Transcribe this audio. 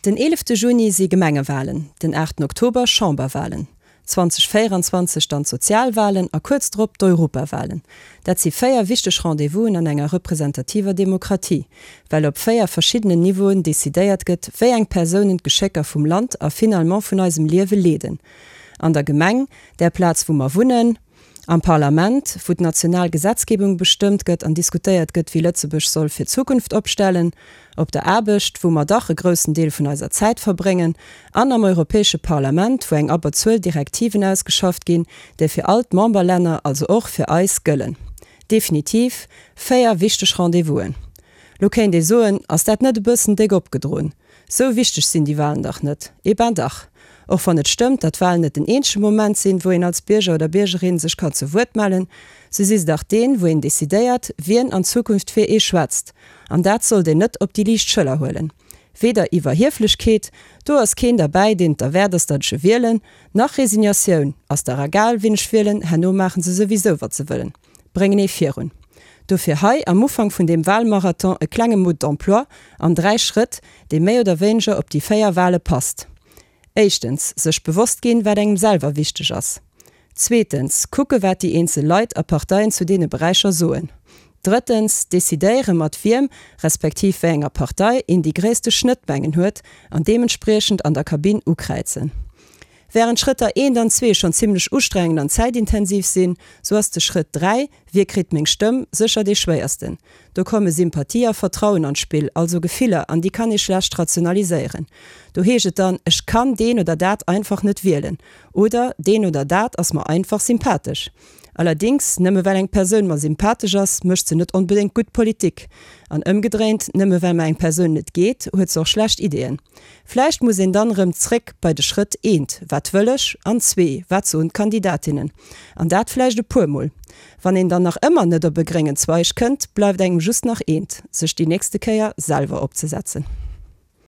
Den eelefte Juni si Gemengewalen, den aachten Oktober Chamberwalen, 2024 dann d'Sozialwalen a kuerz drop d'Europawalen. Dat si 4 wichteg Rendez-vousen an enger representativer Demokratie, well op 4 verschiddenen Niveauen decidéiert gëtt, wéi eng Persounen d'Geschécker vum Land a finalement vun eisem Liewe leeden, An der Gemeng, där Plaz wou mer wunnen, Am Parlament, wou d'national Gesetzgebung bestëmmt gëtt an diskutéiert gëtt, wéi Lëtzebuerg soll fir d'Zukunft opstellen, op der Aarbecht, wou mer dach e groussen Deel vun eiser Zäit verbréngen, an am Europäesche Parlament, wou eng Abberzuel Direktiven ausgeschafft ginn, déi fir all d'Memberlänner, also och fir eis, gëllen. Definitiv 4 wichteg Rendez-vousen. Lo kéint ee soen, ass dat net e bëssen déck opgedroen? Sou wichteg sinn déi Walen dach net. Eh ben dach! Och wann et stëmmt, datt Walen net den eenzege Moment sinn, wou een als Bierger oder Biergerin sech kann zu Wuert mellen, sou si se dach deen, wou een decidéiert, wien an Zukunft fir ee schwätzt. An dat sollt een net op déi liicht Schëller huelen. Weder Iwwerhieflechkeet, do ass keen derbäi, deen et derwäert ass, datt ech e wielen, nach Resignatioun, ass dach egal, wien ech wielen, herno maachen se souwisou, wat se wëllen. Bréngen ee virun. Dofir hei am Ufank vun deem Wahlmarathon e klenge Mode d'emploi an 3 Schrëtt, dee méi oder wéineger op déi 4 Wahle passt. Éischtens, sech bewosst ginn, wat engem selwer wichteg ass. Zweetens, kucke wat déi eenzel Leit a Parteien zu deene Beräicher soen. Drëttens, decidéiere mat wiem, respektiv wéi enger Partei een déi gréisste Schnëttmengen huet an deementspriechend an der Kabinn ukräizen. Wärend Schrëtter eent an zwee schonn zimmlech ustrengend an zäitintensiv sinn, sou ass de Schrëtt 3, Wie kritt meng Stëmm, sécher dee schwéiersten. Do komme Sympathie a Vertrauen an d'Spill, also Gefiller, an déi kann ee schlecht rationaliséieren. Do heescht et dann, Ech kann deen oder dat einfach net wielen oder Deen oder dat ass mer einfach sympathesch. Allerdings, nëmme well eng Persoun mer sympathesch ass, mécht se net onbedéngt gutt Politik. An ëmgedréint, nëmme well mer eng Persoun net geet, huet se och schlecht Ideeën. Vläicht muss een dann erëm zréck bei de Schrëtt eent, wat wëll ech, an zwee, wat soen d'Kandidatinnen? An dat vläicht e puer Mol. Wann een dann nach ëmmer net op e gréngen Zweig kënnt, bleift engem just nach eent, sech déi nächste Kéier selwer opzesetzen.